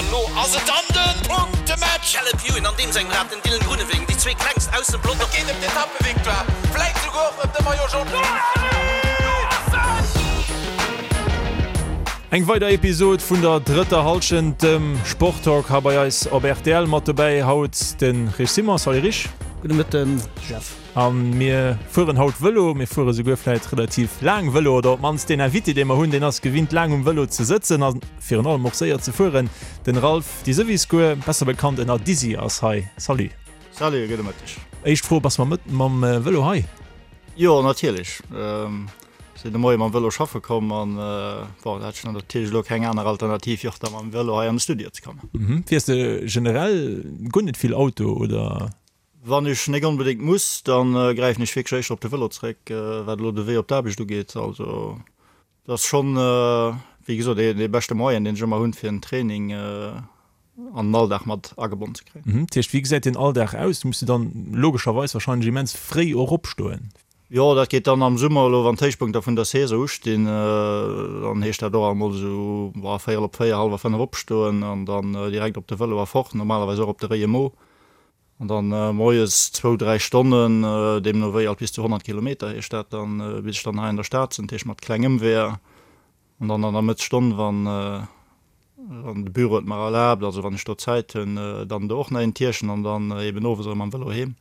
An elo ass et dann de Punktematch! Caleb Ewan an deem sengem Rad, den Dylan Groenewegen, déi zwee klengst aus dem Pelotong. Et geet ëm d'Etappevictoire, vläit souguer och ëm de Maillot Jaune. Eng weider Episod vun der drëtter Hallschent, dem Sporttalk hei bei eis op rtl. Mat dobäi haut de Rich Simon. Salut Rich. Gudde Mëtten Jeff. A mir fueren haut Vëlo. Mir fuere souguer vläit relativ laang Vëlo, oder op d'mannst deen Invité, dee mer hunn, deen ass gewinnt laang um Vëlo ze sëtzen a virun allem och séier ze fueren. Den Ralph Diseviscourt, besser bekannt ënner Dizzy, ass hei. Salut. Salut, gudde Mëtteg. Éischt Fro, Bass mam mam Vëlo hei? Jo, natierlech. Sinn de Moie mam Vëlo schaffe komm an bon, da hat ech natierlech elo keng aner Alternativ wéi och da mam Vëlo hei an de Studio ze kommen. Fiers de generell guer net vill Auto, oder? Wann ech nek onbedéngt muss, da gräifen ech wierklech éischter op de Vëlo zréck, wat elo de Wee op d'Aarbecht ugeet. Also et ass schonn, wéi gesot, dee beschte Moyen, deen ech ëmmer hunn, fir en Training an den Alldag mat agebonnen ze kréien. Dat heescht, wéi gesäit deen Alldag aus? Du muss de dann logescherweis wahrscheinlech immens fréi och opstoen. Jo, dat geet dann am Summer elo, wann d'Héichpunkter vun der Saison ustinn, dann heescht dat och emol esou véierel op 4, hallwer 5 opstoen an dann direkt op de Vëlo a fort, normalerweis och op de Réie Mo. An dann moies zwou, dräi Stonnen, deemno wéi alt bis zu 100 Kilometer heescht dat dann, bis ech dann hei an der Stad sinn, dat heescht mat kleng Ëmweeër. An dann an der Mëttsstonn, wann de Büro et mer erlaabt, also wann ech do Zäit hunn, dann do och nach een Tierchen an dann eben owes erëm mam Vëlo heem.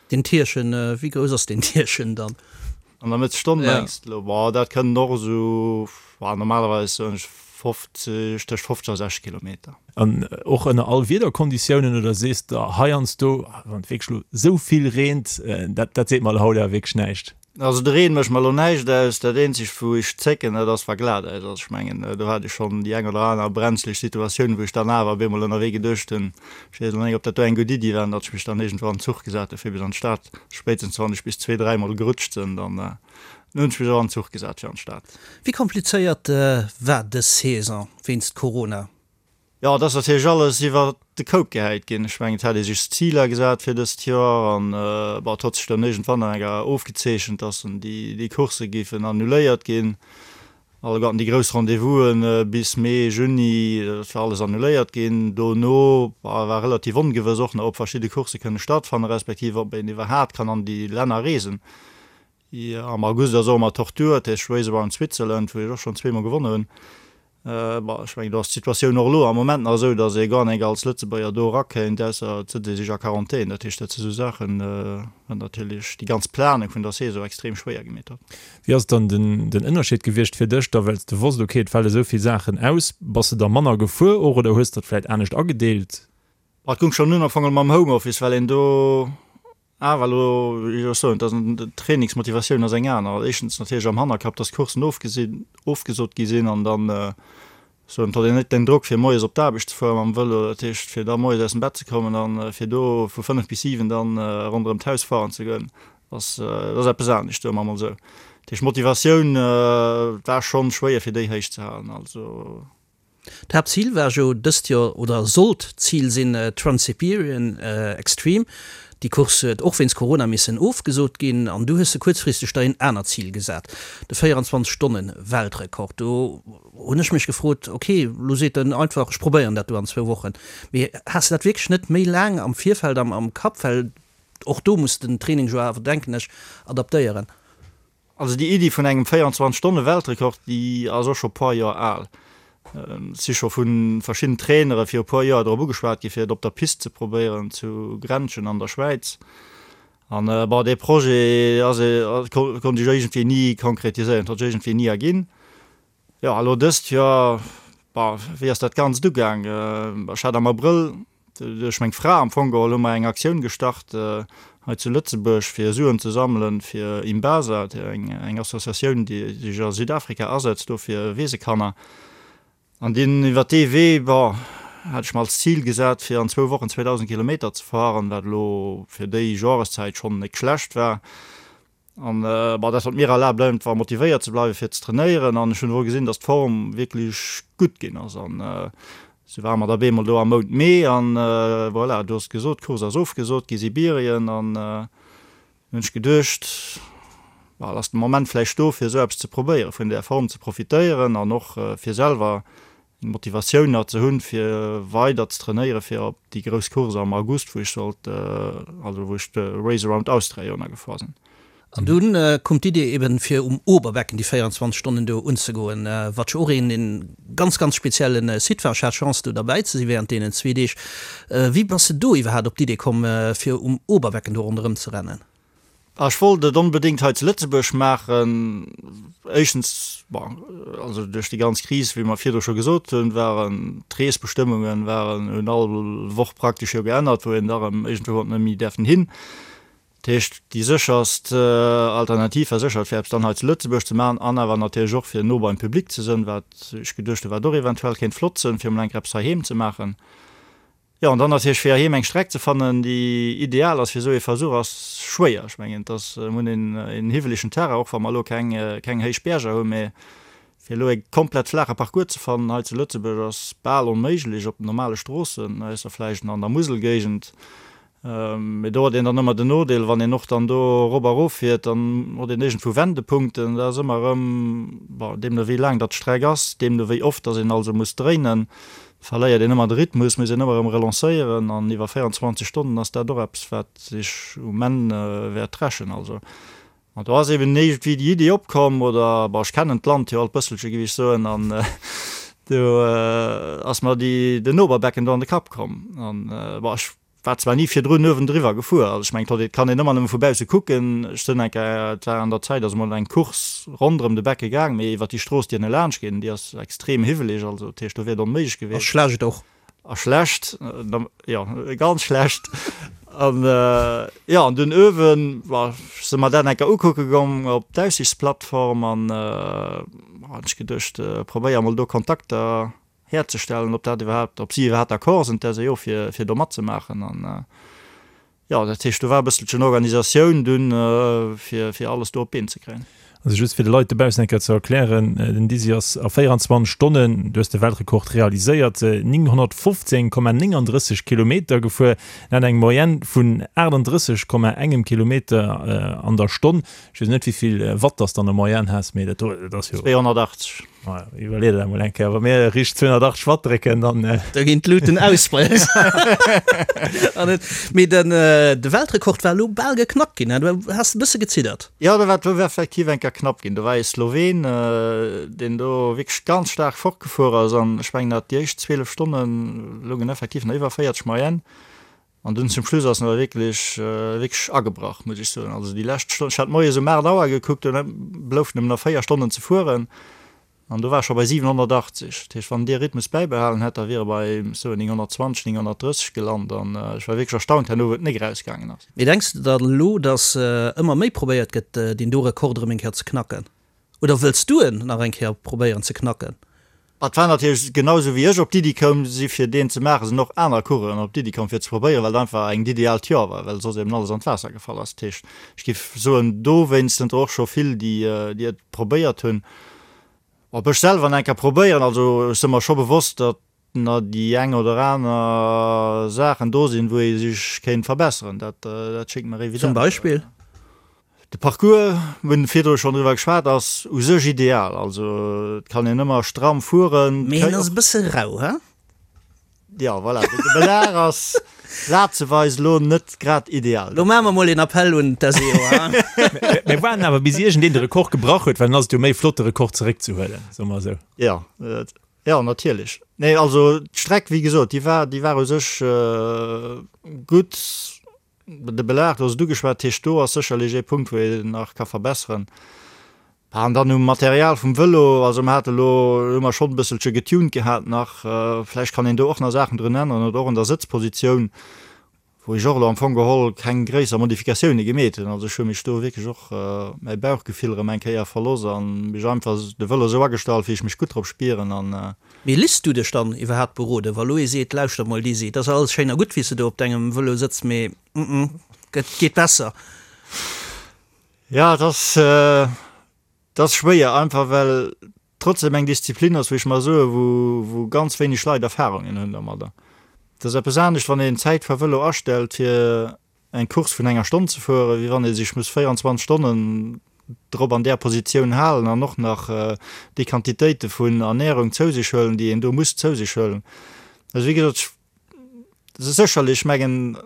Deen Tierchen, wéi grouss ass deen Tierchen dann? An der Mëttesstonn mengs de elo? Boah, dat kënnen och esou, normalerweis soen ech 50, tëscht 50 a 60 Kilometer. An och ënner all Wiederkonditiounen oder sees de heiansdo, wann et wierklech elo esou vill reent, dat dat seet mer elo haut awer wierklech näischt? Also de Reen mécht mer elo näischt aus. Dat eenzegt wou ech zécken, dat ass wa glat Äis ass. Ech mengen do hat ech schonn déi eng oder aner brenzleg Situatioun, wou ech dann awer op eemol ënnerwee geduecht hunn, ech weess elo net ob dat do eng gutt Iddi war, an datt ech mech dann iergendwou an den Zuch gesat hu fir bis an d'Stad. Spéitstens wann ech bis zwee, dräimol gerutscht sinn, dann hunn ech mech och an den Zuch gesat fir an d'Stad. Wéi komplizéiert war dës Saison wéinst Corona? Jo, et ass natierlech alles iwwer de Koup gehäit ginn. Ech mengen, et hat ee sech Ziler gesat fir dëst Joer an, bon, et hott sech dann iergendwann an enger ofgezeechent, dass déi, déi Coursse géifen annuléiert ginn. Alleguerten déi grouss Rendez-vousen bis Mee, Juni, dat war alles annuléiert ginn. Dono war relativ ongewëss och nach, ob verschidde Coursse kënne stattfannen, respektiv ob een iwwerhaat kann an déi Länner reesen. Jo, am August ass och ëmmer Tortur, dat heescht Race Around Switzerland, wou ech och schonn zweemol gewonnen hunn. Bon, ech mengen, do ass d'Situatioun och elo am Moment nach esou, datt ee gar nek als Lëtzebuerger do erakéint, ausser et sëtzt ee sech a Quarantän. Dat heescht, dat si sou Saachen, wat natierlech déi ganz Planung vun der Saison extrem schwéier gemeet huet. Wéi ass dann den Ënnerscheed gewiescht fir dech da, well s de wosst, okay, et fale sou vill Saachen aus, bass de da manner gefuer och oder hues de dat vläit anescht agedeelt? Et goung schonn un am Fong mam Homeoffice, well een do Awer elo wéi ech soen, dass d'Trainingsmotivatioun ass eng aner. Éischtens natierlech am Hannerkapp, dass d'Courssen ofgesinn, ofgesot gi sinn an dann soen, et huet een net den Drock fir moies op d'Aarbecht ze fuere mam Vëlo, dat heescht fir da moies aus dem Bett ze kommen an fir do vu 5 bis 7 dann ronderëm d'Haus fueren ze goen, ass, dat ass eppes anescht, soe mer emol esou. Dat heescht d'Motivatioun war schonn schwéier fir déi héich ze halen. Also. D'Haaptzil war jo dëst Joer, oder sollt d'Zil sinn, d'Trans-Siberian Extreme. Déi Course huet och wéinst Corona missen ofgesot ginn an du hues de kuerzfristeg der een anert Zil gesat, de 24 Stonnen Weltrekord. Do hunn ech mech gefrot, ok, lo seet en einfach, ech probéieren dat do an zwou Wochen. Mee has de dat wierklech net méi laang am Virfeld am Kapp? Well och do muss den Training jo awer, denken ech, adaptéieren. Also déi Iddi vun engem 24 Stonne Weltrekord, déi ass och scho puer Joer al. Et si scho vu verschidden Trainere viru puer Joer drop ugeschwat gi fir et op der Pist ze probéieren zu Grenchen an der Schwäiz. An bon, dee Projet ass, konnt sech iergendwéi ni konkretiséieren, et huet sech iergendwéi ni erginn. Jo, elo dëst Joer, bon, wéi ass dat Ganzt ugaang? Ech hat am Abrëll duerch meng Fra am Fong geholl hu mer eng Aktioun gestart hei zu Lëtzebuerg, fir Suen ze sammelen fir Imbasa, eng Associatioun, déi sech a Südafrika asetzt do fir Weesekanner. An deen, iwwer dee Wee, bon, hat ech mer als Zil gesat, fir an zwou Wochen 2.000 Kilometer ze fahren, wat elo fir déi Joreszäit schonn net schlecht war. An bon, dat huet mir erlaabt einfach motivéiert ze bleiwen fir ze trainéieren an ech hunn och gesinn, dass d'Form wierklech gutt ginn ass an sou ware mer da bemol do am Mount Mee an voilà, du hues et gesot, d'Course ass ofgesot gi, Sibirien an hunn ech geduecht, bon, et ass de Moment vläicht do fir esou eppes ze probéieren, vun där Form ze profitéieren an och fir selwer. Motivatioun nach ze hunn, fir weider ze trainéieren, fir op déi grouss Course am August, wou ech sollt, also wou ech de Race Around Austria jo nach gefuer sinn. An dunn koum d'Idee eben, fir um Oberbecken déi 24 Stonnen do unzegoen, wat jo och een een ganz, ganz speziellen Site war. Ech hat d'Chance do derbäi ze sinn während deenen zwee Deeg. Wéi bass de do iwwerhaapt op d'Idee komm, fir um Oberbecken do ronderëm ze rennen? Ech wollt et onbedéngt hei zu Lëtzebuerg maachen. Éischtens, bon, also duerch déi ganz Kris, wéi mer virdru scho gesot hunn, waren d'Reesbestëmmungen waren, hunn all Woch praktesch jo geännert, wou een da erëm iergendwou huet net méi däerfen hin. Dat heescht, déi sécherst Alternativ war sécher, fir eppes dann hei zu Lëtzebuerg ze maachen an awer natierlech och fir no beim Public ze sënn, wat ech geduecht hunn, wat och eventuell kéint flott sënn, fir emol eng Kéier eppes heiheem ze maachen. Jo, an dann natierlech fir heiheem eng Streck ze fannen, déi ideal ass fir esou ee Versuch, ass schwéier. Ech mengen, et ass, mir hunn een, een hiwwelegen Terrain, och wa mer elo keng, keng héich Bierger hunn, mä fir elo e komplett flaache Parcours ze fannen hei zu Lëtzebuerg ass bal onméiglech op den normale Stroossen, ausser vläicht an der Muselgéigend. Mee do huet een dann ëmmer den Nodeel, wann een och dann do erop a erof fiert, dann huet een iergendwou Wendepunkten. Dat ass ëmmer erëm, bon, deemno wéi laang datt d'Streck ass, deemno wéi oft datt een also muss dréinen, verléiert een ëmmer de Rhythmus, muss een ëmmer erëm relancéieren. An iwwer 24 Stonnen ass dat och eppes, wat sech um Enn wäert rächen. Also An do ass eben iergendwéi déi Iddi opkomm, oder, bon, ech kennen d'Land jo alt bësselche, géif ech soen, an do ass mer déi, den Oberbecken do an de Kapp komm. An, bon, ech war zwar ni virdrun uewendriwwer gefuer, also ech mengen, et kann een ëmmer nëmme vu bausse kucken. Ech sinn eng Kéier, et war an der Zäit, ass emol eng Course ronderëm de Becke gaang, mee iwwer déi Strooss, déi ënne laanscht geet, déi ass extrem hiwweleg, also dat heescht, do wier et onméiglech gewiescht. A schlecht och. A schlecht, jo, ganz schlecht. An jo, an dunn uewen, bah, si mer dat eng Kéier ukucke goung op d'Aussichtsplattform an hunn ech geduecht, probéier emol do Kontakter herzestellen, ob dat iwwerhaapt, ob si iwwerhaapt d'accord sinn, d'SEO, fir, fir do matzemaachen. An Jo, dat heescht, do war e bësselchen Organisatioun dunn, fir, fir alles do op d'Been ze kréien. Also just fir de Leit dobaussen eng Kéier ze erklären, Den Dizzy ass a 24 Stonnen, du hues de Weltrekord realiséiert, 915,39 Kilometer gefuer. Dat eng Moyenne vun 38,engem Kilometer an der Stonn. Ech weess net, wéi vill Watt dass de an der Moyenne has, mee dat do, dat ass jo. 280. Maja, iwwerlee der dat mol eng Kéier. Wa mir riicht 280 Watt drécken, dann. Da ginn d'Luuten aus bei eis. Mee den, de Weltrekord war elo bal geknackt ginn, du has e bësse geziddert. Jo, dat war, do war effektiv eng Kéier knapp ginn. Do war ee Sloween, deen do wierklech ganz staark fortgefuer ass an ech mengen, dat déi éischt 12 Stonne loungen effektiv nach iwwer 40 Moyenne. An dunn zum Schluss ass en awer wierklech, wierklech agebrach, muss ech soen. Also déi lescht Stonn, ech hat moies um 8 Auer gekuckt, dunn bloufen em nach 4 Stonnen ze fueren an do war e scho bei 780. Dat heescht, wann en dee Rhythmus bäibehalen hätt, da wier e bei, soen, 920, 930 gelant an ech war wierklech erstaunt herno, wou et nik erausgaangen ass. Mee denks de dann elo, datt ëmmer méi probéiert gëtt, deen do Rekord erëm eng Kéier ze knacken? Oder wëlls du en nach eng Kéier probéieren ze knacken? Et war natierlech genau esou wéi ech op d'Iddi koum si fir deen ze maachen, sinn och aner Coureuren op d'Iddi komm fir ze probéieren, well et einfach engt ideaalt Joer war, well soss eben alles an d'Waasser gefall ass. Dat heescht, ech géif soen, dowéinst sinn der och scho vill déi déi et probéiert hunn. Ob ech selwer nach eng Kéier probéieren, also ech si mer scho bewosst, datt na déi eng oder aner Saachen do sinn, wou ee sech kéint verbesseren, dat dat schéngt mer evident. Zum Beispill? De Parcours, mir hunn virdru schonn driwwer geschwat, ass u sech ideal. Also et kann een ëmmer stramm fueren. Mee en ass e bësse rau, he? Jo, voilà, de Belag ass plazeweis elo net grad ideal. Lo maache mer mol een Appell un d'SEO, he? Mir waarden awer bis iergendeen de Rekord gebrach huet, well dann ass et jo méi flott de Rekord zeréckzehuelen, soe mer esou. Jo, Jo, natierlech. Nee, also d'Streck, wéi gesot, déi war, déi war u sech gutt. De Belag, du has et ugeschwat, dat heescht, do ass sécherlech ee Punkt, wou een nach ka verbesseren. An dann um Material vum Vëlo, also mer hate lo, hu mer schonn e bësselche getuned gehat nach, vläicht kann een do och nach Saachen drun änneren oder och un der Sëtzpositioun. Wou ech och elo am Fong geholl keng gréisser Modifikatioune gemeet hunn. Also ech hu mech do wierklech och mäi Bauchgefill erëm eng Kéier verloss a mech einfach de Vëlo esou agestallt, wéi ech mech gutt drop spieren. An. Mee liss du dech dann iwwerhaapt beroden, wa lo ee seet, lauschter mol Dizzy, et ass alles schéin a gutt wéi s de do op dengem Vëlo sëtz, mee mm et geet besser? Jo, et ass, et ass schwéier, einfach well trotzdem eng Disziplin ass, wou ech mar soen, wou, wou ganz wéineg Leit Erfahrungen hunn domadder. Et ass eppes anescht, wann een Zäitfahrvëlo astellt, fir eng Course vun enger Stonn ze fueren, wéi wann ee sech muss 24 Stonnen. drop an där Positioun halen an och nach déi Quantitéite vun Ernährung zou sech huelen, déi een do muss zou sech huelen. Also wéi gesot, sécherlech, ech mengen,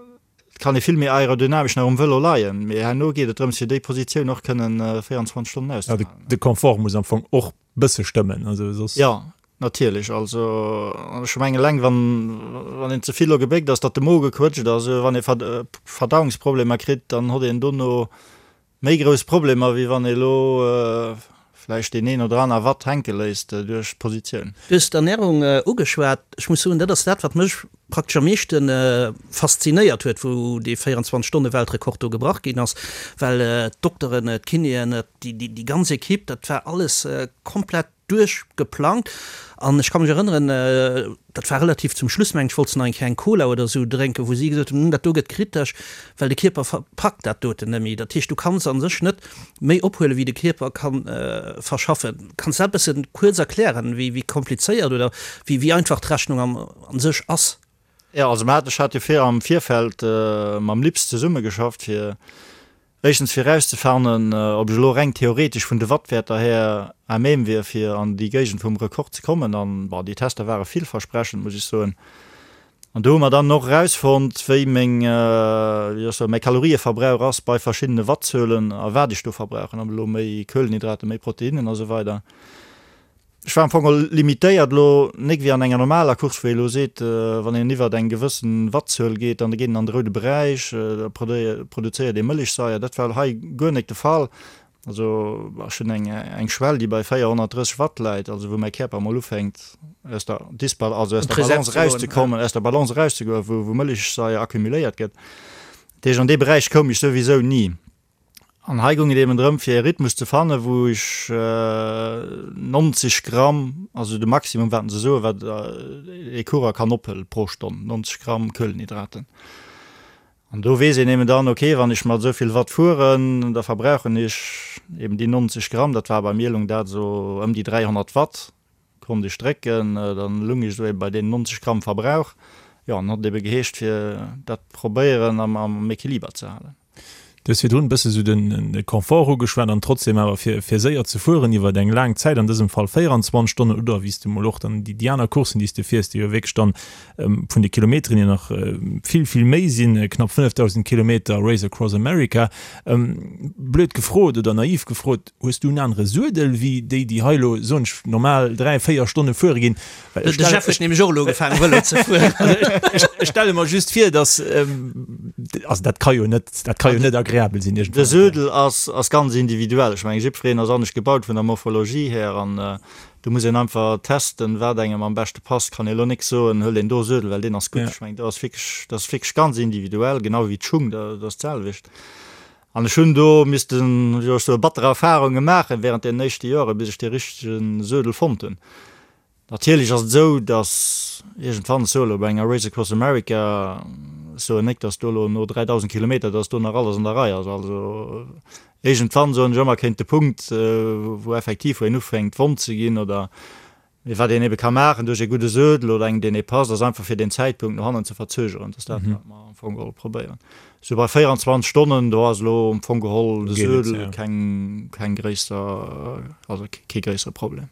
et kann ee vill méi aerodynamesch nach um Vëlo leien, mee herno geet et drëms, fir déi Positioun och kënnen 24 Stonnen auszehalen. De Confort muss am Fong och bësse stëmmen, also soss. Jo, natierlech. Also ech mengen eleng wann, wann een ze vill elo gebéckt ass, datt de Mo gequëtscht ass, wann ee Verdauungsproblemer kritt, dann hott een dono méi grouss Problemer, wéi wann ee elo vläicht deen een oder aner Watt hänke léisst duerch d'Positioun. Du hues d'Ernärung ugeschwat. Ech muss soen, dat ass dat, wat mech praktesch am meeschte faszinéiert huet, wou dee 24 Stonne Weltrekord do gebrach ginn ass, well d'Dokteren, d'Kinéen, déi ganz Equipe, dat war alles komplett duerchgeplangt. An ech ka mech erënneren, dat war relativ zum Schluss, mengen ech, wollt se nach eng Kéier eng Cola oder esou drénken, wou si gesot hunn, dat do gëtt kritesch, well de Kierper packt dat doten net méi. Dat heescht, du kanns a sech net méi ophuelen, wéi de Kierper ka verschaffen. Kanns de dat e bësse kuerz erklären, wéi komplizéiert oder wéi einfach d'Rechnung am a sech ass. Jo, also mer haten, ech hat jo vir am Virfeld mam LIPS zesummegeschafft, fir éischtens fir erauszefannen, ob ech elo reng theoretesch vun de Wattwäerter här à même wier, fir an déi Géigend vum Rekord ze kommen. An, bon, déi Tester ware villversprechend, muss ech soen. An do hu mer dann och erausfonnt, wéi meng, wéi soll ech soen, mäi Kalorieverbrauch ass bei verschiddene Wattzuelen a wat ech do verbrauchen, ob elo méi Kuelenhydraten, méi Proteinnen a sou weider. Ech war am Fong och limitéiert elo, nik wéi an enger normaler Course, wou ee elo seet, wann een iwwert eng gewëssen Wattzuel geet, dann geet een an de roude Beräich, da produzéiert ee Mëllechsaier. Dat war hei guer nik de Fall. Also ech hunn eng eng Schwell, déi bei 430 Watt läit, also wou mäi Kierper emol ufänkt aus der Disbal also aus der Balance erauszekommen, aus der Balance erauszegoen, wou wou Mëllechsaier accumuléiert gëtt. Dat heescht, an dee Beräich koum ech souwisou ni. An hei goung et eben drëm, fir e Rhythmus ze fannen, wou ech 90 Gramm, also de Maximum, wat se soen, wat ee Coureur kann ophëllen pro Stonn, 90 Gramm Kuelenhydraten. An do weess een eben dann, okay, wann ech mat esou vill Watt fueren, da verbrauchen ech eben déi 90 Gramm, dat war bei mir lung dat esou ëm déi 300 Watt, konnt ech drécken, dann lung ech esou eben bei deenen 90 Gramm Verbrauch. Jo, an hat et ebe geheescht, fir dat probéieren am Equiliber ze halen. Du hues virdrun e bësse sou den Confort ugeschwat an trotzdem awer fir fir séier ze fueren iwwer eng laang Zäit, an dësem Fall 24 Stonnen oder wéi s de mol och dann déi déi aner Courssen, déi s de fiers, déi jo wierklech dann vun de Kilometeren hier nach vill, vill méi sinn, knapp 5.000 Kilometer Race Across America. Blöd gefrot oder naiv gefrot, hues du en anere Suedel wéi déi, déi hei elo, soen ech, normal 3, 4 Stonne fuere ginn? De Jeff huet nämlech och elo ugefaangen Vëlo ze fueren. Ech stelle mer just vir, dass, also dat ka jo net, dat ka jo net agreabel sinn iergendwann. De Suedel ass, ass ganz individuell. Ech mengen, jiddwereen ass anescht gebaut vun der Morphologie här an do muss een einfach testen, wat engem am beschte passt. Kann ee elo nik soen, huel deen do Suedel, well deen ass gutt. Ech mengen, do ass wierklech, dat ass wierklech ganz individuell, genau wéi d'Schung, dat ass d'selwecht. An ech hunn do missten, wéi soll ech soen, batter Erfarunge maachen während deenen éischte Joren, bis ech dee richtege Suedel fonnt hunn. Natierlech ass et esou, datt iergendwann, ech soe elo bei enger Race Across America, ech soen nek, datt do elo no 3.000 Kilometer, datt do nach alles an der Rei ass. Also iergendwann, soen ech ëmmer, kéint de Punkt, wou effektiv, wou een ufänkt wonn ze ginn oder, mee wat een ebe ka maachen duerch ee gudde Suedel oder engem, deen ee passt, ass einfach fir deen Zäitpunkt no hannen ze verzögeren. Dat ass dat, wat mer am Fong geholl probéieren. Sou bei 24 Stonnen, do ass elo am Fong geholl de Suedel keng, keng gréisser, also kee gréissere Problem.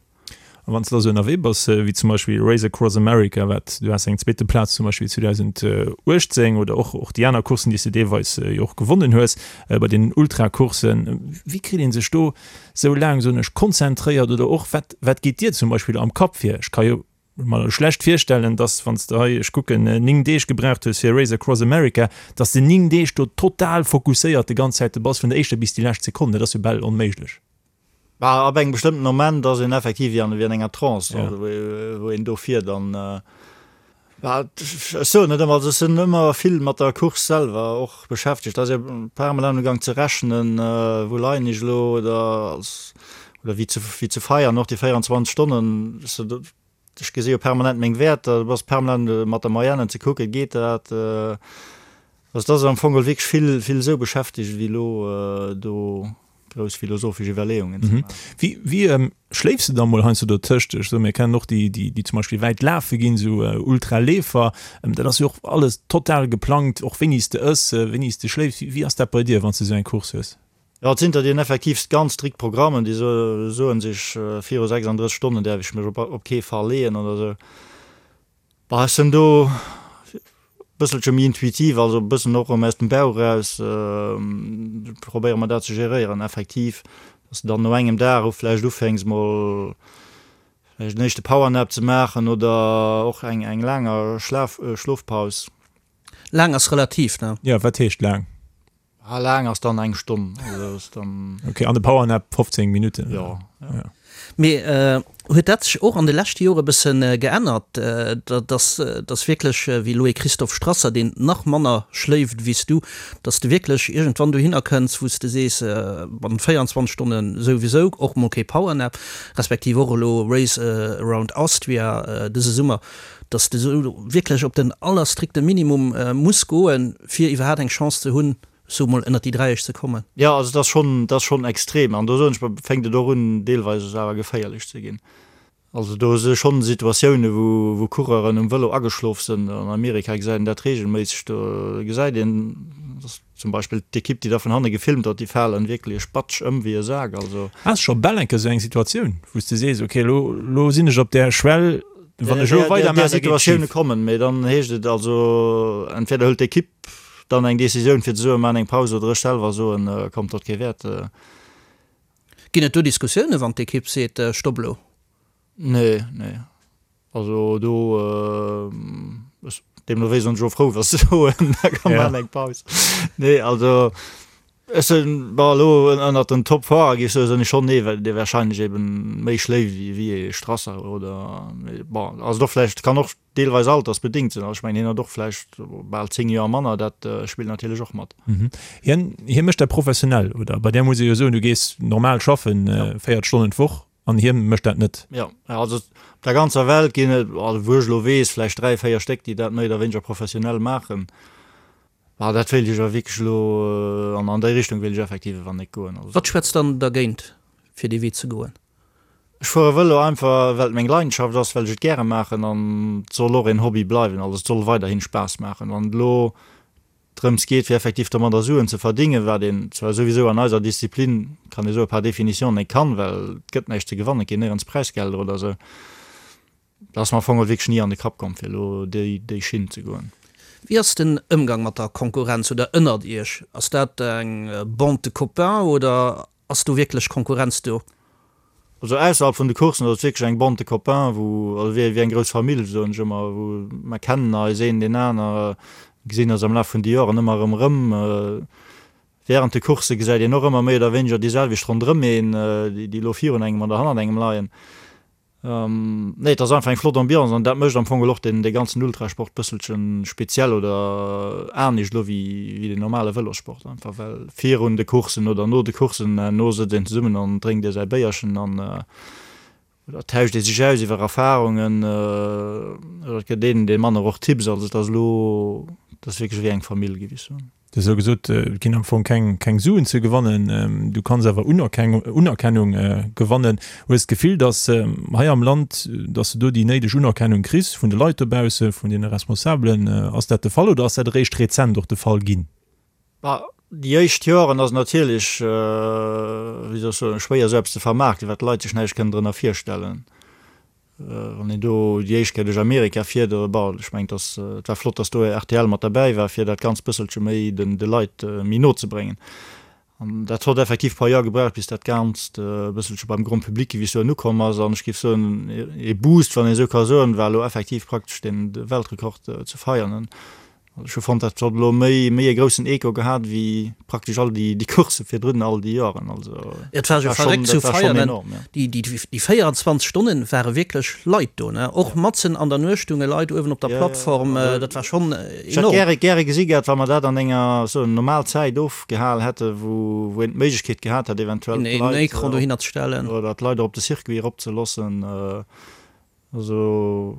A wann s de da sou ënnerwee bass, wéi zum Beispill Race Across America, wat du has eng zweete Plaz zum Beispill 2018 oder och och déi aner Courssen, déi s de deelweis jo och gewonnen hues bei den Ultracourssen, wéi kritt ee sech do sou laang, soen ech, konzentréiert oder och wat wat geet dir zum Beispill am Kapp vir? Ech ka jo mer schlecht virstellen, dass wann s de hei, ech kucken, 9 Deeg gebraucht hues fir Race Across America, dass de 9 Deeg do total fokusséiert de ganz Zäit bass vun der éischter bis déi lescht Sekonn. Dat ass jo bal onméiglech. Bah, ab engem bestëmmten Moment ass een effektiv wéi an, wéi an enger Trance, also wou, wou een do fiert an, bah, ech soen net ëmmer, also ech sinn ëmmer vill mat der Course selwer och beschäftegt, da ass ee permanent am Gang ze rechnen, wou leien ech elo oder als, oder wéi ze, wéi ze feiern och déi 24 Stonnen, Ech gesi jo permanent meng Wäerter, du bass permanent mat der Moyenne ze kucken, geet dat? Also et ass am Fong geholl wierklech vill, vill esou beschäftegt ewéi elo do grouss philosophesch Iwwerleeungen ze maachen. Wéi, wéi schléifs de da mol heiansdo dotëscht? Ech soen, mir kennen och déi, déi, déi zum Beispill wäit lafe ginn, esou Ultraleefer. Dat ass jo och alles total geplangt, och wéini s de ëss, wéini s de schléifs. Wéi ass dat bei dir, wann s de esou eng Course hues? Jo, et sinn der, déi hunn effektiv ganz strikt Programmen, déi soen sech, viru 36 Stonnen däerf ech mech op kee Fall leeën oder esou. Bah, ech sinn do e bësselche méi intuitiv, also e bëssen och erëm aus dem Bauch eraus probéiere mer dat ze geréieren, effektiv, dass de dann no engem Dag och vläicht ufänks mol vläicht en éischte Powernap ze maachen oder och eng eng laanger Schlaf Schlofpaus. Laang ass relativ, ne? Jo, wat heescht laang? Ah, laang ass dann eng Stonn, also ass dann. Ok, an de Powernap 15 Minutten? Jo, jo. Mee huet dat sech och an de leschte Jore bësse geännert, dass dass wierklech, wéi elo ee Christoph Strasser, deen nach manner schléift wéi s du, dass de wierklech iergendwann dohinner kënns, wou s de sees, bannent 24 Stonne souwisou, och mol kee Powernap, respektiv och elo Race Around Austria dëse Summer, dass de sou wierklech op den allerstrikte Minimum muss goen, fir iwwerhaat eng Chance ze hunn, sou mol ënnert déi Dräiesch ze kommen. Jo, also et ass schonn, et ass schonn extrem. An do soen ech mer, fänkt et och un deelweis awer geféierlech ze ginn. Also do si schonn Situatioune wou, wou Coureuren um Vëlo ageschlof sinn. An Amerika gesäit een dat reegelméisseg. Do gesäit een, dass zum Beispill d'Ekipp, déi da vun hanne gefilmt huet, déi falen wierklech batsch ëm wéi e Sak. Also. Has scho bal eng Kéier esou eng Situatioun, wou s de sees, ok, elo, elo sinn ech op där Schwell, wann ech elo weider maachen, da geet et schif. Situatioune kommen, mee dann heescht et also, entweder hëlt d'Ekipp dann eng Decisioun fir ze soen, maachen eng Paus, oder ech selwer soen, kommt, dat kee Wäert. Ginn et do Diskussiounen, wann d'Ekipp seet, Stopp elo? Nee, nee. Also do, ech, deemno wéi sinn ech och frou, wa se soen, da komm maachen eng Paus. Nee, also ech sinn, bon, elo ënnert den Top-Fahrer géif ech soen, sinn ech schonn ee, dee warscheinlech eben méi schléift wéi ee Strasser oder, mee bon, ass et och vläicht, kann och deelweis altersbedingt sinn. Also ech mengen, hien huet och vläicht bal 10 Joer manner, dat spillt natierlech och mat. Hien, hie mécht dat professionell, oder? Bei där muss ee jo soen, du gees normal schaffen, 40 Stonnen d'Woch, an hie mécht dat net. Jo, also op der ganzer Welt ginn et, also wou ech elo weess, vläicht 3, 4 Stéck, déi dat méi oder wéineger professionell maachen. Bah, dat wéilt ech awer wierklech elo, an an déi Richtung wéilt ech effektiv awer net goen. Also. Wat schwätzt dann dergéint, fir dee Wee ze goen? Ech fuere Vëlo einfach, well et meng Leidenschaft ass, well ech et gäre maachen an et soll och een Hobby bleiwen. Also et soll weiderhin Spaass maachen. Wann et elo drëms geet, fir effektiv domadder Suen ze verdingen, wat een zwar souwisou an eiser Disziplin, kann ee soe par définition net kann, well et gëtt näischt ze gewannen, et ginn néierens Präisgelder oder esou, dat ass mer am Fong och wierklech ni an de Kapp komm, fir elo déi déi Schinn ze goen. Wéi ass den Ëmgang mat der Konkurrenz oder ënnert Iech? Ass dat eng Bande de copains oder Ass do wierklech Konkurrenz do? Also ausserhalb vun de Coursen ass et wierklech eng Bande de copains, wou, also wéi eng grouss Famill, soen ech ëmmer, wou mer kennen eis een deen aner, gesinn eis am Laf vun de Joren ëmmer erëm erëm. Während de Coursse gesäit een och ëmmer méi oder wéineger déi selwecht ronderëm een, déi elo virun engem oder hannert engem leien. Nee, et ass einfach eng flott Ambiance an dat mécht am Fong och den dee ganzen Ultrasport bësselchen speziell oder anescht elo wéi wéi den normale Vëlossport einfach well virun de Courssen oder no de Courssen no sëtzt een zesummen an drénkt ee säi Béierchen an oder tauscht ee sech aus iwwer Erfarungen oder et gëtt een deem anere och Tipps. Also et ass elo, et ass wierklech ewéi eng Famill géif ech soen. Du hues elo gesot, et ginn am Fong keng, keng Suen ze gewannen. Du kanns awer Unerkennung gewannen. Hues d'Gefill, datt hei am Land, datt s de do déi néideg Unerkennung kriss vun de Leit dobausse, vun deene Responsabelen? Ass dat de Fall oder ass dat eréischt rezent och de Fall ginn? Bah, déi éischt Joren ass et natierlech, wéi soll ech soen, schwéier esou eppes ze vermaarkten, well d'Leit sech näischt kënnen drënner virstellen. Wann een do déi éischt Kéier duerch Amerika fiert, oder bon, ech mengen, dass, et war flott, dass do rtl mat derbäi war, fir dat Ganzt bësselche méi den, de Leit méi no ze bréngen. An dat hott effektiv e paar Joer gebraucht, bis dat Ganzt e bësselche beim Grand public, géif ech soen, ukomm ass. An ech géif soen, ee Boost, wann een esou ka soen, war elo effektiv praktesch den Weltrekord ze feiern. Ech hu fonnt, dat hott elo méi méi e groussen Echo gehat wéi praktesch all déi déi Coursse virdrun all déi Joren. Also Et war jo verréckt zu feiern. Déi déi déi 24 Stonnen ware wierklech Leit do, ne? Och matzen an der Nuecht stounge Leit uewen op der Plattform. Dat war schonn enorm. Ech hätt gäre gäre gesi gehat, wa mer dat an enger sou normal Zäit ofgehal hätte wou wou een d'Méiglechkeet gehat hätt eventuell d'Leit en Ecran dohinner ze stellen oder d'Leit och op de Circuit erop ze loossen. Also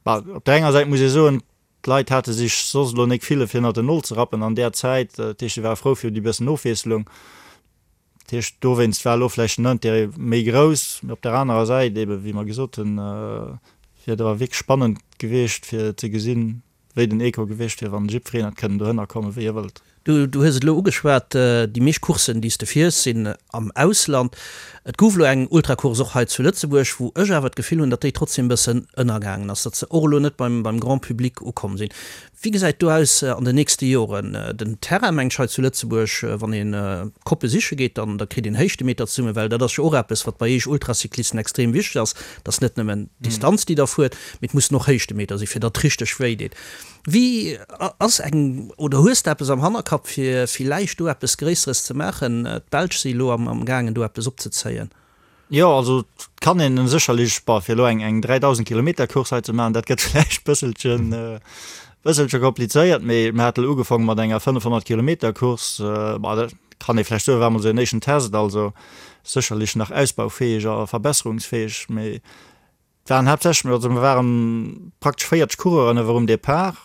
bah op der enger Säit muss ee soen, D'Leit hate sech soss elo nek ville fir ënnert den Nol ze rappen an där Zäit. Dat heescht, se ware frou fir déi bëssen Ofwiesslung. Dat heescht, dowéinst war elo vläicht den Intérêt méi grouss. Mee op der anerer Säit eeben, wéi mer gesot hunn, wier et awer wierklech spannend gewiescht fir ze gesinn, wéi den Echo gewiescht wier, wann jiddwereen hätt kënnen dohënner kommen, wéi e wëllt. Du hues et elo ugeschwat, déi meescht Courssen, déi s de fiers, sinn am Ausland. Et gouf elo eng Ultracourse och hei zu Lëtzebuerg, wou ech awer d'Gefill hunn, datt déi trotzdem e bëssen ënnergaangen ass, datt se och elo net beim Grand Public ukomm sinn. Wéi gesäit do aus an den nächste Joren? Den Terrain, mengt ech, hei zu Lëtzebuerg, wann ee Koppe siche geet, dann da kritt een Héichtemeter zesummen, well dat ass jo och eppes, wat bei eech Ultracyclisten extrem wichteg ass, et ass net nëmmen d'Distanz, déi der fuert, mee et mussen och Héichtemeter sinn, fir datt et richteg wéi deet. Wéi ass eng, oder hues de eppes am Hannerkapp fir villäicht do eppes Gréisseres ze maachen? D'Belsch si elo am gaangen do eppes opzezéien. Jo, also et kann een sécherlech, bon, fir elo eng eng 3.000 Kilometer Course hei ze maachen, dat gëtt vläicht bësselchen bësselche komplizéiert, mee mir hate elo ugefaange mat enger 500 Kilometer Course, bon, dat kann ee vläicht soen, war emol esou en éischten Test, also sécherlech nach ausbaufäeg a verbesserungsfäeg, mee Et waren haaptsächlech, also mir waren praktesch 40 Coureuren ewell um Depart,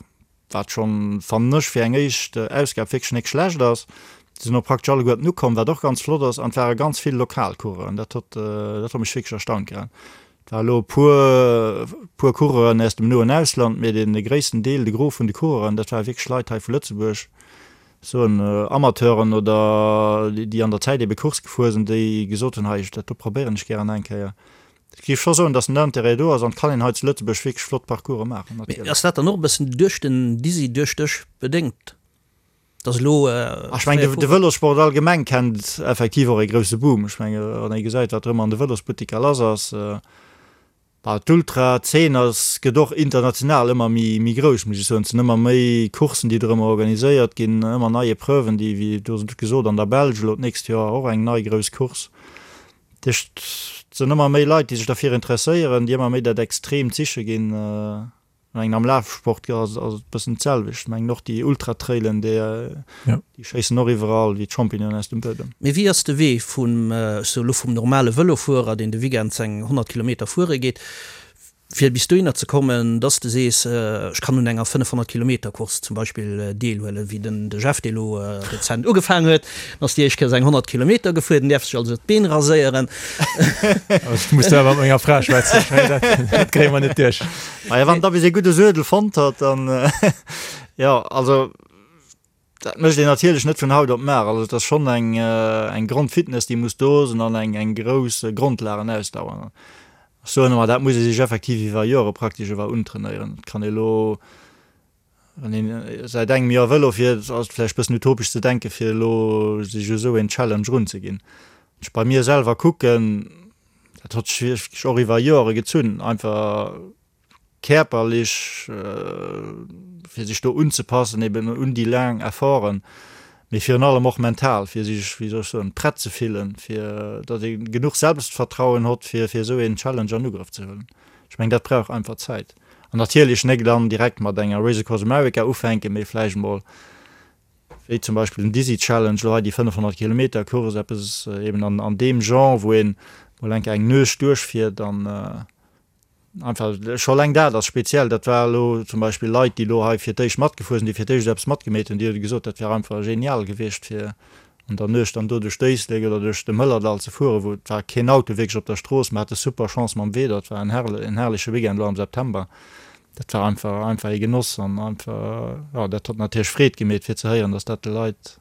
wat schonn, fannen ech, fir eng éischt Ausgab wierklech nek schlecht ass. Se sinn och praktesch alleguerten ukomm, wat och ganz flott ass, an et ware ganz vill lokal Coureuren. Dat hott, dat hott mech wierklech erstaunt gehat. Et war elo e puer, puer Coureuren aus dem noen Ausland, mee dee gréissten Deel, de Gros vun de Coureuren, dat ware wierklech Leit hei vu Lëtzebuerg, soen Amateuren oder déi an der Zäit ebe Course gefuer sinn, déi gesot hunn, hei, dat do probéieren ech gären eng Kéier. Ech géif scho soen, dass den Intérêt do ass an et kann een hei zu Lëtzebuerg wierklech flott Parcourse maachen, Mee natierlech. ass dat dann och e bëssen duerch den Dizzy, duerch dech bedéngt, dass elo Ech mengen, de Vëlossport allgemeng kennt effektiv och ee grousse Boom. Ech menge wann ee gesäit, wat erëm an de Vëlosbuttiker lass ass. Bah, d'Ultra-Zeen ass, gëtt och international ëmmer méi, méi grouss, muss ech soen. Et sinn ëmmer méi Courssen, déi dorëmmer organiséiert ginn, ëmmer nei Epreuven, déi, wéi do gesot, an der Belsch elo d'nächst Joer och eng nei grouss Course. Dat heescht, et sinn ëmmer méi Leit, déi sech derfir interesséieren, déi ëmmer méi dat Extreemt siche ginn. Ech mengen, am Lafsport ass et e bëssen d'selwecht. Ech mengen, och déi Ultratrailen, déi schéissen och iwwerall wéi d'Champignonen aus dem Buedem. Mee wéi ass de Wee vum, ech soe lo vum normale Vëlofuerer, deen de Weekend seng 100 Kilometer fuere geet, Fir bis dohinner ze kommen, dass de sees, ech kann un enger 500 Kilometer Course zum Beispill deelhuelen, wéi den de Jeff, dee lo rezent ugefaangen huet, en ass déi éischt Kéier seng 100 Kilometer gefuer, den däerf sech also d'Been raséieren. Ech muss do awer mat menger Fra schwätzen, ech mengen, dat kréie mer net duerch. Maja, wann da bis ee gudde Suedel fonnt huet, dann, jo, also. Dat mécht een natierlech net vun haut op mar. Also et ass schonn eng eng Grondfitness, déi muss do sinn an eng eng grouss Grondlagenausdauer. Ech soen ëmmer, dat muss ee sech effektiv iwwer Jore praktesch ewell untrainéieren. Et kann ee elo, wann een säit engem Joer Vëlo fiert, ass et vläicht e bëssen utopesch ze denken, fir elo sech u sou een Challenge erunzeginn. Wann ech bei mir selwer kucken, dat hott sech wierklech och iwwer Jore gezunn, einfach kierperlech, fir sech do unzepassen eben un déi laang Efforten, mee virun allem och mental, fir sech, wéi soll ech soen, prett ze fillen, fir datt ee genuch Selbstvertrauen hott, fir fir esou een Challenge an Ugrëff ze huelen. Ech mengen, dat brauch einfach Zäit. An natierlech nek dann direkt mat enger Race Across America ufänken, mee vläicht emol, wéi zum Beispill den Dizzy Challenge, elo hei déi 500 Kilometer Course, eppes eben an an deem Genre, wou een mol eng Kéier eng Nuecht duerchfiert an, Einfach, scho eleng dat ass speziell. Dat war elo zum Beispill Leit, déi elo hei fir d'éischt matgefuer sinn, déi fir d'éischt eppes matgemeet hunn, déi hu gesot, dat wär einfach genial gewiescht, fir an der Nuecht dann do duerch d'Éislek oder duerch de Mëllerdall ze fueren, wou et war keen Auto wierklech op der Strooss. Mer hate super Chance mam Wieder, et war en herrleche Weekend elo am September. Dat war einfach, einfach ee Genoss an einfach, jo, dat huet natierlech Freed gemeet, fir ze héieren, datt dat de Leit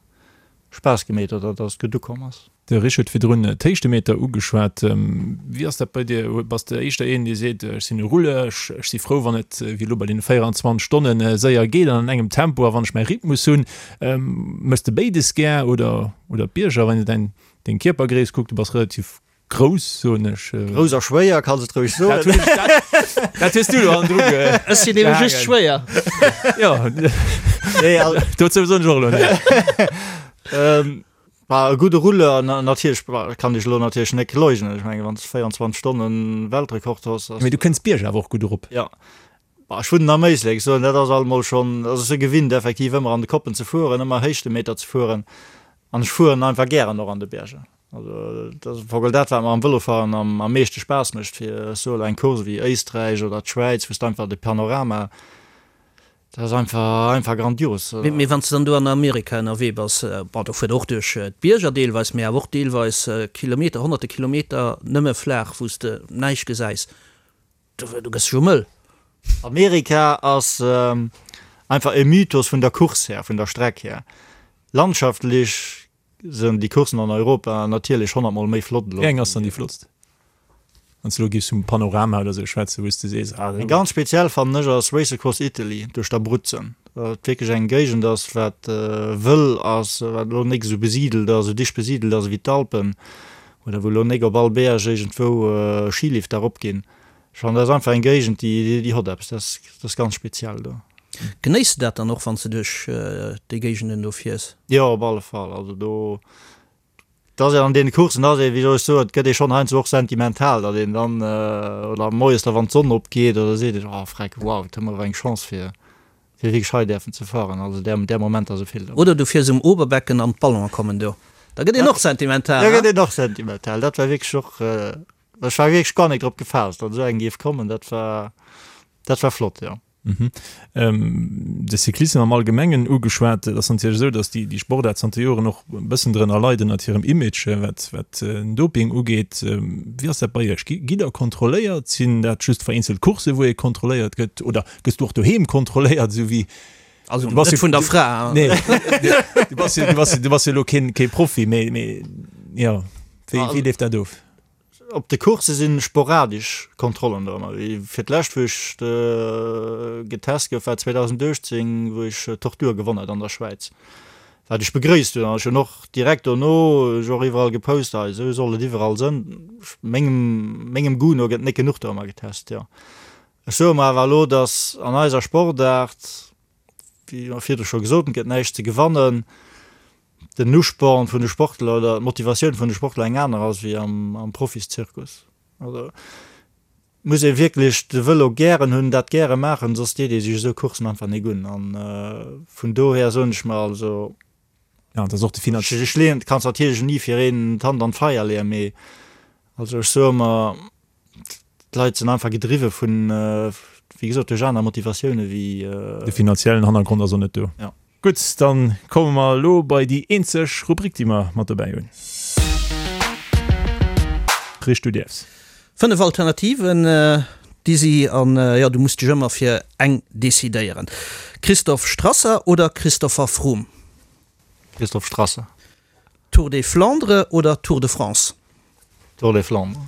Spaass gemeet huet oder datt et gutt ukomm ass. De Rich huet virdrun d'Héichtemeter ugeschwat. Wéi ass dat bei dir? Bass de éischter een, dee seet, ech sinn e Rouleur, ech si frou, wann et wéi elo bei deene 24 Stonne séier geet an an engem Tempo a wann ech mäi Rhythmus hunn? Méchs de béides gär oder oder d'Bierger? Wann een däin deng Kierpergréisst kuckt, du bass relativ grouss, soen ech. Grouss a schwéier, kanns et roueg soen. Dat hues du elo hannendru gehaangen. Ech sinn ebe just schwéier. Jo, dozou soen ech och elo näischt. Bah, e gudde Rouleur, natierlech, bah, kann ech elo natierlech net leugnen. Ech mengen, wann s de 24 Stonnen Weltrekord hues, ass. Mee du kënns d'Bierger awer och gutt erop. Jo. Bah, ech wunnen am Éislek, ech soen, dat ass alt mol schonn, also ech si gewinnt effektiv ëmmer an de Koppen ze fueren, ëmmer Héichtemeter ze fueren an ech fueren einfach gären och an de Bierger. Also dat ass am Fong dat, wat mer am Vëlofahren am am meeschte Spaass mécht, fir, ech soe elo, eng Course wéi Éisträich oder d'Schwäiz, wou s de einfach de Panorama, Dat ass einfach, einfach grandios. Mee wann s de dann do an Amerika ënnerwee bass, bon, do fuert och duerch d'Bierger deelweis, mee awer och deelweis Kilometer, honnerte Kilometer nëmme flaach, wou s de näischt gesäis, do, do gëss de jo mëll. Amerika ass einfach e Mythos vun der Course här, vun der Streck här. Landschaftlech sënn déi Courssen an Europa natierlech honnertmol méi flott elo. Wéi eng ass dann déi flottst? Wann s de elo giffs vum Panorama oder sou schwätzen, wou s de sees, ah. Eng ganz speziell fannen ech ass Race Across Italy duerch d'Abruzzen, wat wierklech eng Géigend ass, wat wëll ass, wat elo nik esou besidelt ass, esou dicht besidelt ass ewéi d'Alpen, oder wou elo nik op all Berg iergendwou Skilifter eropginn. Ech fannen dat ass einfach eng Géigend, déi déi hott eppes, dat ass dat ass ganz speziell do. Genéiss de dat dann och wann s de duerch déi Géigenden do fiers? Jo, op alle Fall. Also do, et ass een an deene Courssen ass ee, wéi soll ech soen, et gëtt ee schonn heiansdo och sentimental, datt een dann, oder moies da wann d'Sonn opgeet oder seet een, oh freck, wow, et hu mer awer eng Chance fir fir wierklech hei däerfen ze fueren. Also där där Momenter si vill dobäi. Oder du fiers um Oberbecken an d'Ballonen kommen do, da gëtt een och sentimental, Da gëtt een och sentimental. Dat war wierklech och, ech war wierklech guer net drop gefaasst, datt esou eng géif kommen. Dat war dat war flott, jo. De Cyclissem am Allgemengen ugeschwat. Et ass natierlech esou, datt déi Sportaart zanter Joren och e bëssen drënner leit ënnert hirem Image, wat wat den Doping ugeet. Wéi ass dat bei Iech? Gitt Der kontrolléiert? Sinn dat just vereenzelt Coursse wou ee kontrolléiert gëtt oder gëss du och doheem kontrolléiert, esou wéi Also net vun der Fra. Nee, du bass jo, du bass, du bass jo elo keen, kee Profi, mee, mee jo, wéi, wéi leeft dat of? Op de Coursse si sporadesch Kontrollen do ëmmer. Fir d'lescht wou ech getest gouf war 2018, wou ech Tortur gewonn hat an der Schwäiz, wat ech begréisst hunn. An ech hunn och direkt dono ech och iwwerall gepost, hei esou soll et iwwerall sënn. Mengem mengem Goût no gëtt net genuch do ëmmer getest, jo. Ech soe mer awer elo, datt an eiser Sportaart, wéi mer virdru scho gesot hunn, et gëtt näischt ze gewannen. den Usporn vun de Sportler oder d'Motivatioun vun de Sportler eng aner ass wéi am Profiszirkus. Also muss ee wierklech de Vëlo gären hunn, dat gäre maachen, soss deet ee sech esou Courssen einfach nik un. An vun dohier soen ech mer also, Ja, dat ass och de Finanz. Ech leeën, kanns natierlech ni fir een d'Hand an d'Feier leeën, mee also ech soe mer, D'Leit sinn einfach gedriwwe vun, wéi gesot, duerch aner Motivatioune wéi. De finanziellen Hannergrond ass och net do. Jo. Gutt, dann komme mer elo bei déi eenzeg Rubrik, déi mer mat dobäi hunn. Richt, du däerfs. 5 Alternativen, déi si an jo, du muss dech ëmmer fir eng decidéieren. Christoph Strasser oder Christopher Froome? Christoph Strasser. Tour des Flandres oder Tour de France? Tour des Flandres.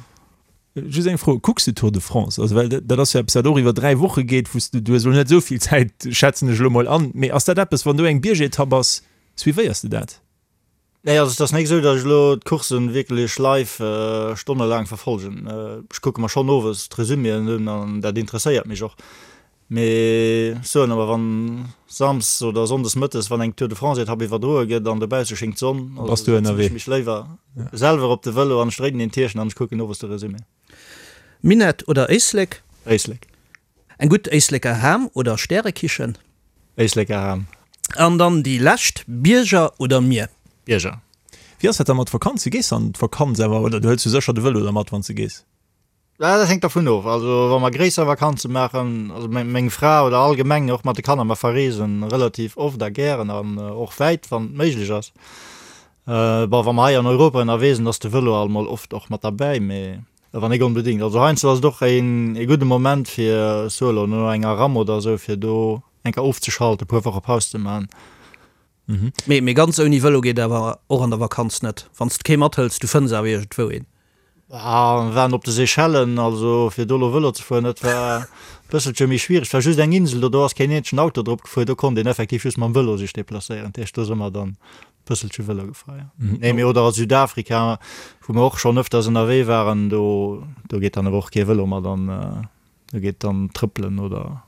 Just eng Fro, Kucks de Tour de France? Also well dat ass jo eppes wat och iwwer 3 Woche geet, wou s de, du hues elo net esou vill Zäit, schätzen ech elo mol an, mee ass dat eppes, wann do eng Biergetapp ass, suivéiers de dat? Nee, also et ass nik esou, datt ech elo d'Courssen wierklech live stonnelaang verfolgen. Ech kucke mer schonn owes d'Resuméen un an dat interesséiert mech och. Mee ech soen awer, wann Samsdes oder Sonndes mëttes, wann eng Tour de France Etapp iwwerdroe gëtt an dobausse schéngt d'Sonn, also Bass du setzen ech mech léiwer selwer op de Vëlo an ech dréinen een Tierchen an ech kucken owes de Resumé. Minett oder Éislek? Éislek. Eng gutt Éisleker Ham oder Stärekichen? Éisleker Ham. An dann déi lescht, Bierger oder Mier? Bierger. Wéi ass dat da mat Vakanze? Gees de an d'Vakanz awer oder du hëls jo sécher de Vëlo da mat wann s de gees? Dat hänkt dervun of. Also wa mer gréisser Vakanze maachen, also meng Fra oder allgemeng och mat de Kanner, mer verreesen relativ oft a gären an och wäit, wann et méiglech ass. Bon, wa mer hei an Europa ënnerwee sinn, ass de Vëlo alt mol oft och mat derbäi, mee awer nik onbedéngt. Also heiansdo ass et och een ee gudde Moment fir, ech soe elo, no enger Ramm oder esou, fir do eng Kéier ofzeschalten, e puer Woche Paus ze maachen. Mee mee ganz ouni Vëlo geet awer och an der Vakanz net. Wann s de kee mathëls, du fënns awer iergendwou een. Ah, mir waren op de Seychellen, also fir do elo Vëlo ze fueren, dat war e bësselche méi schwiereg. Et war just eng Insel do, do ass keen eenzegen Auto drop gefuer, do konnt een effektiv just mam Vëlo sech deplacéieren. Dat heescht, do si mer dann e bësselche Vëlo gefuer, jo. Nee, mee oder a Südafrika, wou mer och schonn ëfters ënnerwee waren, do do geet dann awer och kee Vëlo mat an, do geet dann trëppelen oder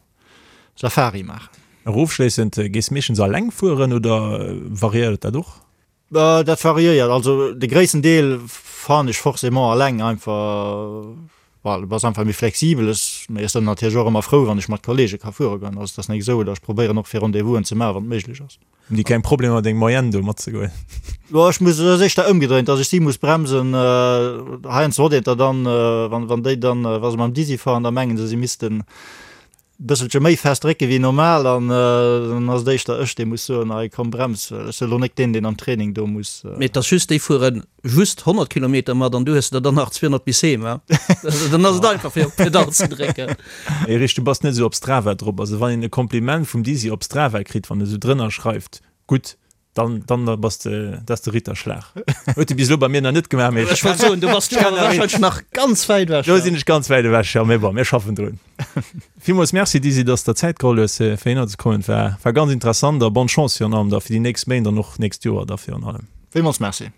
Safari maachen. Nach ofschléissend, Gees meeschtens alleng fueren oder variéiert dat och? Dat variéiert. Also de gréissten Deel fahren ech forcément alleng, einfach well du bass einfach méi flexibel. Ech, mee ech sinn natierlech och ëmmer frou, wann ech mat Kollege ka fuere goen. Also et ass net esou, oder ech probéieren och fir Rendez-vousen ze maachen, wann et méiglech ass. Hunn déi keng Problemer deng Moyenne do matzegoen? Jo, ech muss, et ass éischter ëmgedréint, dass ech si muss bremsen. Heiansdo huet een der dann, wann, wann déi dann, wa se mam Dizzy fahren, da mengen se, si missten bësselche méi fest drécke wéi normal an dann ass et éischter ech, dee muss soen, hei komm brems, well ech sinn elo net deen, deen am Training do muss. Mee et ass just, déi fuere just 100 Kilometer mat an du hues der dann nach 200 bis heem, he? Dann ass et einfach fir op d'Pedall ze drécken. Erich, du bass net esou op Strava drop. Also wann een e Kompliment vum Dizzy op Strava kritt, wann e sou drënner schreift, gutt. Dann, dann bass de, dat ass de Ritterschlag. Huet de bis elo bei mir nach net gemaach, mee Ech wollt soen, du bass do awer warscheinlech nach ganz wäit ewech. Do sinn ech ganz wäit ewech, jo, mee bon, mir schaffen drun. Villmools Merci Dizzy, dass de der Zäit geholl hues fir hinner ze kommen. War, war ganz interessant a bonne Chance virun allem da fir déi nächst Méint an och nächst Joer da virun allem. Villmools Merci.